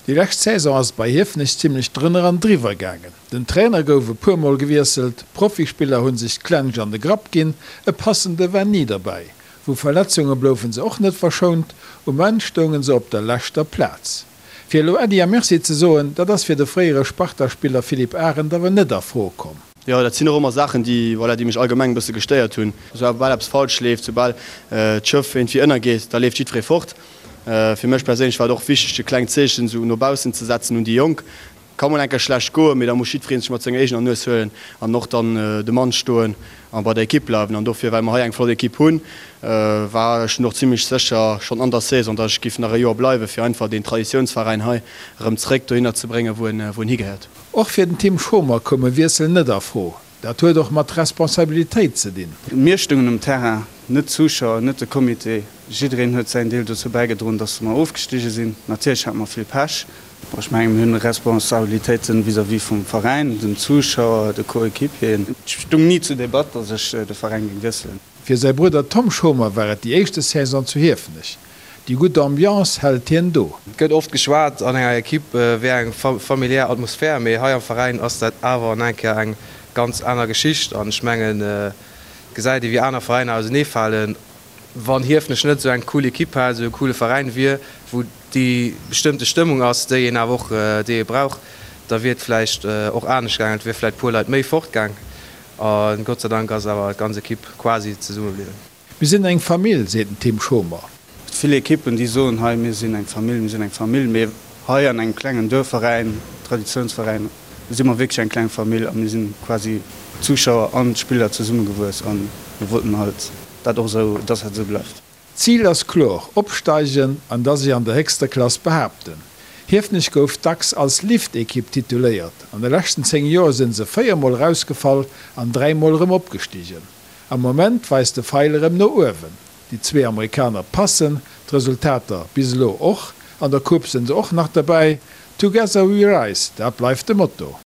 Déi lescht Saison ass et bei Hiefenech zimmlech drënner an driwwer gaangen. Den Trainer gouf e puer Mol gewiesselt, Profispiller hunn sech d'Klensch an de Grapp ginn, e passende war ni derbäi. Vu Verletzunge bloufen se och net verschount, um Enn stoungen se op der leschter Plaz. Fir elo Äddi a Merci ze soen, dat ass fir de fréiere Sparta-Spiller Philippe Arendt awer net a Fro komm. Jo, dat sinn och ëmmer Saachen, déi, voilà, déi mech allgemeng e bësse gestéiert hunn. Soubal eppes falsch leeft, soubal d'Schëff iergendwéi ënnergeet, da leeft jiddweree fort. Fir mech perséinlech war et och wichteg, e klengt Zeechen esou no baussen ze setzen un déi Jonk. Ka mol eng Kéier schlecht goen, mee da muss jiddweree sech mat senger eegener Nues huelen an och dann de Mann stoen a bei der Ekipp bleiwen. An dofir, well mer hei eng flott Ekipp hunn, war ech dunn och zimlech sécher schonn an der Saison, datt ech giff nach e Joer bleiwen, fir einfach deen Traditiounsveräin hei erëm zréck dohinner ze bréngen, wou en wou en higehéiert. Och fir den Tim Schomer koum e Wiessel net a Fro. Dat huet och mat Responsabilitéit ze dinn. Mir stoungen um Terrain, net d'Zuschauer, net de Comité. Jiddereen huet säin Deel dozou bäigedroen, dass mer ofgestige sinn. Natierlech hate mer vill Pech. Bon, ech mengen, mir hunn Responsabilitéiten vis-à-vis vum Veräin, den Zuschauer, de Coéquipieren. Et stung ni zur Debatt, dass ech de Veräin géing wiesselen. Fir säi Brudder Tom Schomer war et déi éischte Saison zu Hiefenech. Déi gutt Ambiance hält hien do. Et gëtt oft geschwat, an enger Ekipp wär eng familiär Atmosphär, mee hei am Veräin ass dat awer an eng Kéier eng ganz aner Geschicht. An ech mengen, et gesäit ee wéi aner Veräiner auseneefalen. Wann Hiefenech net esou eng cool Ekipp hätt, esou e coole Veräin wier, wou déi bestëmmte Stëmmung ass, déi een awer och, déi ee brauch, da wier et vläicht och anescht gaangen. Et wier vläicht e puer Leit méi fortgaang. A Gott sei Dank ass awer d'ganz Ekipp quasi zesumme bliwwen. Mir sinn eng Famill, seet den Tim Schomer. Et vill Ekippen, déi soen, hei mir sinn eng Famill, mir sinn eng Famill, mee hei an engem klengen Duerfveräin, Traditiounsveräin, si mer wierklech eng kleng Famill a mir sinn quasi d'Zuschauer an d'Spiller zesummegewuess a mir wollten halt dat och esou, dass dat esou bleift. D'Zil ass kloer, opsteigen an da sech an der héchster Klass behaapten. Hiefenech gouf dacks als Liftekipp tituléiert. An de leschten 10 Joer sinn se 4 mol erausgefall an 3 mol erëm opgestigen. Am Moment weist de Feil erëm no uewen. Déi zwee Amerikaner passen, d'Resultater bis elo och. An der Coupe sinn se och nach derbäi. Together we rise, dat bleift de Motto.